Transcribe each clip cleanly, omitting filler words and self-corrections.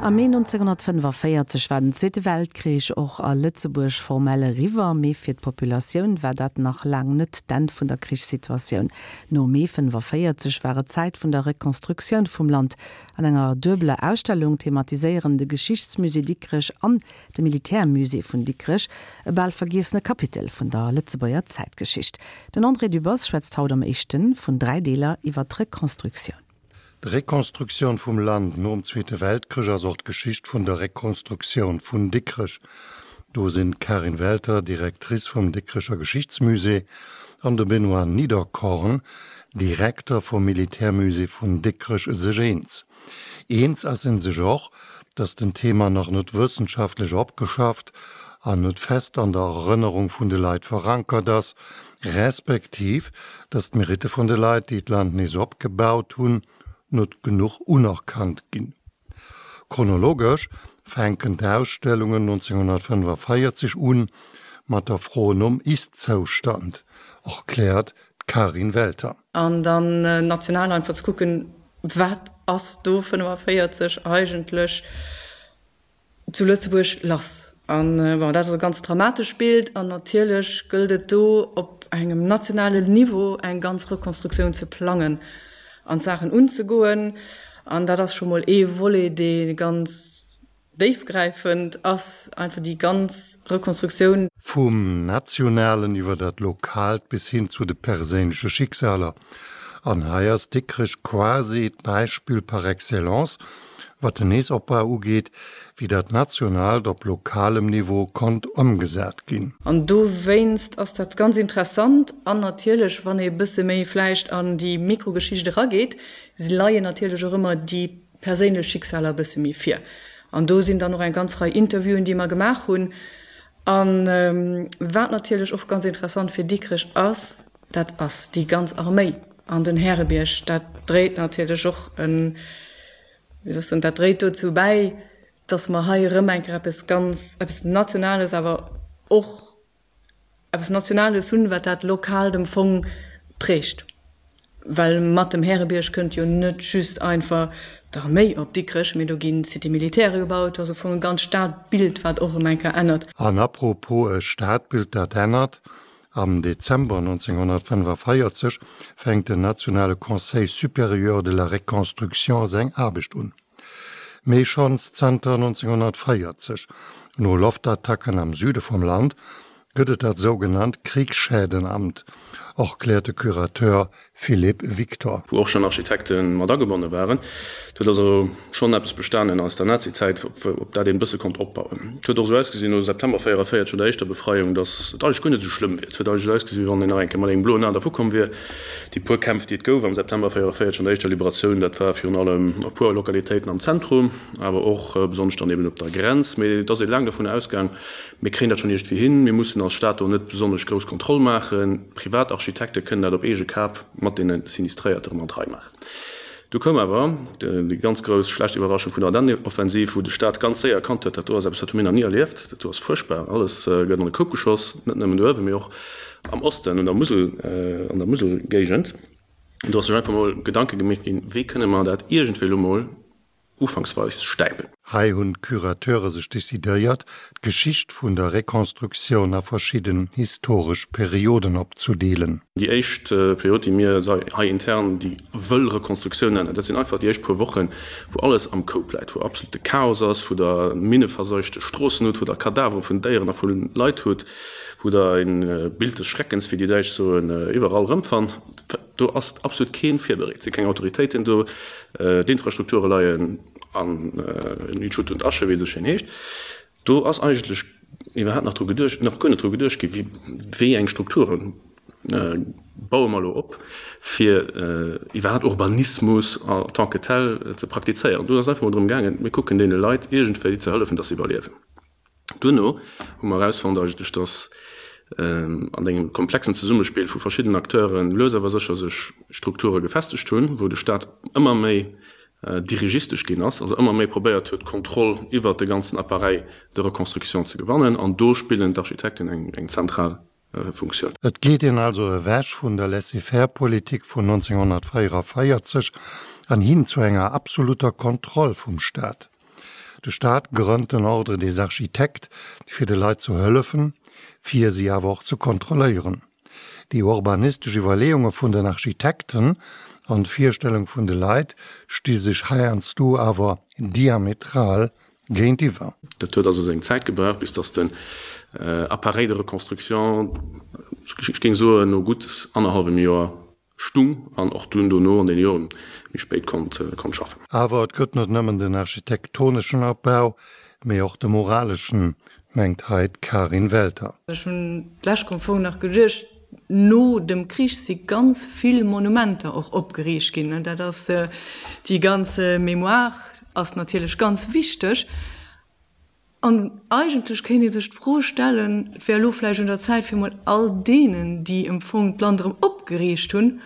Am Mee 1945 war den Zweete Weltkrich och a Lëtzebuerg formell eriwwer, mee fir d'Populatioun war dat nach laang net d'Enn vun der Krichssituatioun. No Mee 45 war et Zäit vun der Rekonstruktioun vum Land. An enger duebeler Ausstellung thematiséieren de Geschichtsmusée Dikrech an de Militärmusée vun Dikrech e bal vergiessene Kapitel vun der Lëtzebuerger Zäitgeschicht. Den André Dübbers schwätzt haut am éischte vun 3 Deeler iwwer d'Rekonstruktioun. D'Rekonstruktioun vum Land nom Zweete Weltkrich ass och d'Geschicht vun der Rekonstruktioun vun Dikrech. Do sinn d'Karin Welter, Directrice vum Dikrecher Geschichtsmusée, an de Benoît Niederkorn, Direkter vum Militärmusée vun Dikrech sech eens. Eens ass en sech och, datt den Thema nach net wëssenschaftlech opgeschafft an net fest an der Erënnerung vun de Leit verankert ass, respektiv datt d'Meritte vun de Leit, déi d'Land nees opgebaut hunn, net genuch unerkannt ginn. Chronologesch fänken d'Ausstellungen 1945 un mat der Fro nom Ist-Zoustand, erkläert d'Karin Welter. An dann national einfach ze kucken, Wat ass do 45 eigentlech zu Lëtzebuerg lass? An bon, dat ass e ganz dramatescht Bild. An natierlech gëllt et do op engem nationalen Niveau eng ganz Rekonstruktioun ze plangen an d'Saachen unzegoen. An dat ass scho mol ee Volet, dee ganz Déifgräifend ass einfach déi ganz Rekonstruktioun. Vum Nationalen iwwer dat Lokaalt bis hin zu de perséinleche Schicksaler. An hei ass Dikrech quasi d'Beispill par excellence, wat den Neesopbau ugeet, wéi dat Nationaalt op lokalem Niveau konnt ëmgesat ginn. An dowéinst ass dat ganz interessant. An natierlech, wann ee bësse méi vläicht an déi Mikrogeschicht erageet, leien natierlech och ëmmer déi perséinlech Schicksaler e bësse méi vir. An do sinn dann och eng ganz Rei Interviewen, déi mer gemaach hunn. A wat natierlech och ganz interessant fir Dikrech ass, dat ass déi ganz Arméi an den Härebierg. Dat dréit natierlech och en, wéi soll ech soen, dat dréit dozou bäi, datt mer hei erëm eng Kéier eppes ganz, eppes Nationales awer och eppes Nationales hunn, wat dat Lokaalt am Fong prägt. Well mat dem Härebierg kënnt jo net just einfach d'Arméi op Dikrech, mee do gi Cité militaire gebaut, do ass am Fong e ganz Stadbild, wat och erëm eng Kéier ännert. An apropos e Stadbild, dat ännert, Am Dezember 1945 fänkt den nationale Conseil supérieur de la reconstruction seng Aarbecht un. Mee schonns zanter 1940, no Loftattacken am Süde vum Land, gëtt et dat sougenannt Kriegsschädenamt, erkläert de Curateur Philippe Victor. Wou och schonn Architekte mat agebonne waren. Et huet also schonn eppes bestanen aus der Nazizäit, op dat een e bësse konnt opbauen. Et huet och esou ausgesinn no September 44, no der éischter Befreiung, datt et eigentlech guer net esou schlëmm wier. Et huet eigentlech ausgesinn, wéi wann een nach eng Kéier mat engem bloen A dervukomm wier. Déi puer Kämpf, déi et gouf am September 44 an der éischter Liberatioun, dat war virun allem a puer Lokalitéiten am Zentrum, awer och besonnesch dann eben op der Grenz. Mee et ass ee laang dovun ausgaang, mir kréien dat schonn iergendwéi hin, mir mussen als Staat do net besonnesch grouss Kontroll maachen, Privatarchitekte kënnen dat op eege Kap mat deene Sinistréierte erëm an d'Rei maachen. Du koum awer déi ganz grouss schlecht Iwwerraschung vun der Ardennenoffensiv, wou de Staat ganz séier erkannt huet, dat do ass eppes, dat hu mir nach ni erlieft, dat do ass fuerchtbar, alles gëtt an e Koup geschoss, net nëmmen do uewen, mee och am Osten, un der Musel, an der Muselgéigend. An do ass sech einfach mol Gedanke gemeet ginn, wéi kënne mer dat iergendwéi elo mol ufanksweis stäipen. Hei hunn d'Curateure sech decidéiert, d'Geschicht vun der Rekonstruktioun a verschidden historesch Perioden opzudeelen. Déi éischt Period, déi mir hei intern déi wëll Rekonstruktioun nennen, dat sinn einfach déi éischt puer Wochen, wou alles am Koup läit, wou absolute Chaos ass, wou der minneverseuchte Stroossen hutt, wou der Kadavere vun Déieren a vu Leit hutt, wou der e Bild des Schreckens, wéi déi Däitsch soen, iwwerall erëmfannt. Do ass absolut keen virbereet, si keng Autoritéiten do, d'Infrastrukture leien an Schutt und Asche, wéi et esou schéin heescht. Do ass eigentlech iwwerhaapt nach dru geduecht, nach guer net dru geduecht gi wéi eng Strukture baue mer elo op, fir iwwerhaapt Urbanismus en tant que tel ze praktizéieren. Do ass einfach mol drëm gaangen, mir kucken deene Leit iergendwéi ze hëllefen, dass se iwwerliewen. Duerno hu mer erausfonnt eigentlech, dass an engem komplexen Zesummespill vu verschiddenen Acteure lues awer sécher sech Strukture gefestegt hunn, wou de Staat ëmmer méi dirigistesch ginn ass, also ëmmer méi probéiert huet, d'Kontroll iwwert de ganzen Appareil de reconstruction ze gewannen. An do spillen d'Architekten eng zentral Funktioun. Et geet een also ewech vun der Laissez-faire-Politik vun 1944 an hin zu enger absoluter Kontroll vum Staat. De Staat grënnt den Ordre des Architectes, fir de Leit zu hëllefen, fir si awer och ze kontrolléieren. Déi urbanistesch Iwwerleeunge vun den Architekten an d'Virstellung vun de Leit sti sech heiansdo awer diametral géintiwwer. Dat huet also seng Zäit gebraucht, bis datt den Appareil de reconstruction, ech géing soen no gutt annerhallwem Joer, stung an och dunn dono an den Joren méi spéit konnt schaffen. Awer et gëtt net nëmmen den architektoneschen Opbau, mee och de moraleschen, mengt hei d'Karin Welter. Ech hunn d'lescht am Fong nach geduecht, no dem Krich si ganz vill Monumenter och opgeriicht ginn. Dat ass, déi ganz Mémoire ass natierlech ganz wichteg. An eigentlech kéint ee sech d'Fro stellen, et wär elo vläicht un der Zäit, fir emol all deenen, déi em Fong d'Land erëm opgeriicht hunn,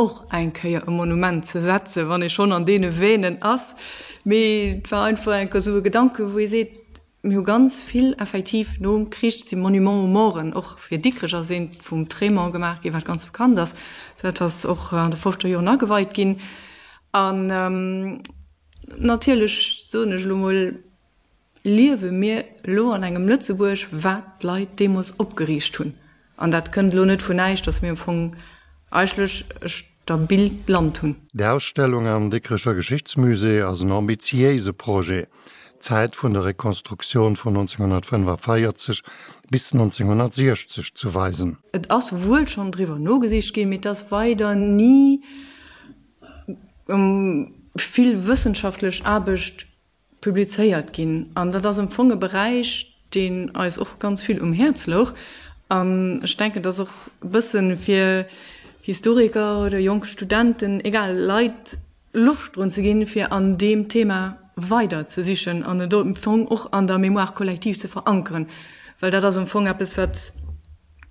och eng Kéier e Monument ze setzen, wann ee schonn an deene Veinen ass. Mee et war einfach eng Kéier esou e Gedanke wou ee seet, mir hu ganz vill effektiv nom Krich si Monuments aux morten, och fir Dikrech ass eent vum Trémont gemaach ginn, wat ganz bekannt ass, dat ass och an de fofzeger Joren ageweit ginn. An Natierlech, soen ech elo mol, liewe mir elo an engem Lëtzebuerg, wat d'Leit deemools opgeriicht hunn. An dat kënnt elo net vun näischt, datt mir am Fong eigentlech e stabilt Land hunn. D'Ausstellung am Dikrecher Geschichtsmusée ass en ambitiéise Projet, d'Zäit vun der Rekonstruktioun vun 1945 bis 1960 ze weisen. Et ass wuel schonn driwwer nogesicht ginn, mee et ass weider ni vill wëssenschaftlech Aarbecht publizéiert ginn. An dat ass am Fong e Beräich, deen eis och ganz vill um Häerz louch. An ech denken, dass och e bësse fir Historiker oder jonk Studenten, egal, Leit Loscht drun ze ginn, fir an deem Thema weider ze sichen an et am Fong och an der Mémoire collective ze verankeren, well dat ass am Fong eppes, wat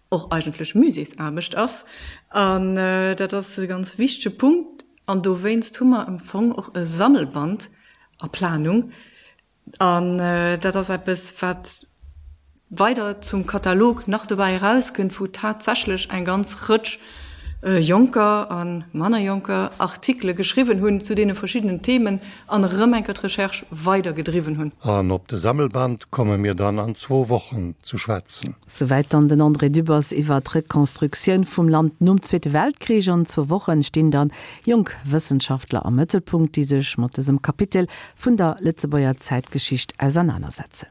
och eigentlech Muséesaarbecht ass. An dat ass e ganz wichtege Punkt. An dowéinst hu mer am Fong och e Sammelband a Planung. An dat ass eppes, wat weider zum Katalog nach dobäi erauskënnt, wou tatsächlech eng ganz Rëtsch jonker a manner jonker Artikele geschriwwen hunn zu deene verschiddenen Themen an erëm eng Kéier d'Recherche weidergedriwwen hunn. An op de Sammelband komme mir dann an zwou Wochen zu schwätzen. Souwäit dann den André Dübbers iwwer d'Rekonstruktioun vum Land nom Zweete Weltkrich. An zwou Wochen stinn dann jonk Wëssenschaftler am Mëttelpunkt, déi sech mat dësem Kapitel vun der Lëtzebuerger Zäitgeschicht ausernanersetzen.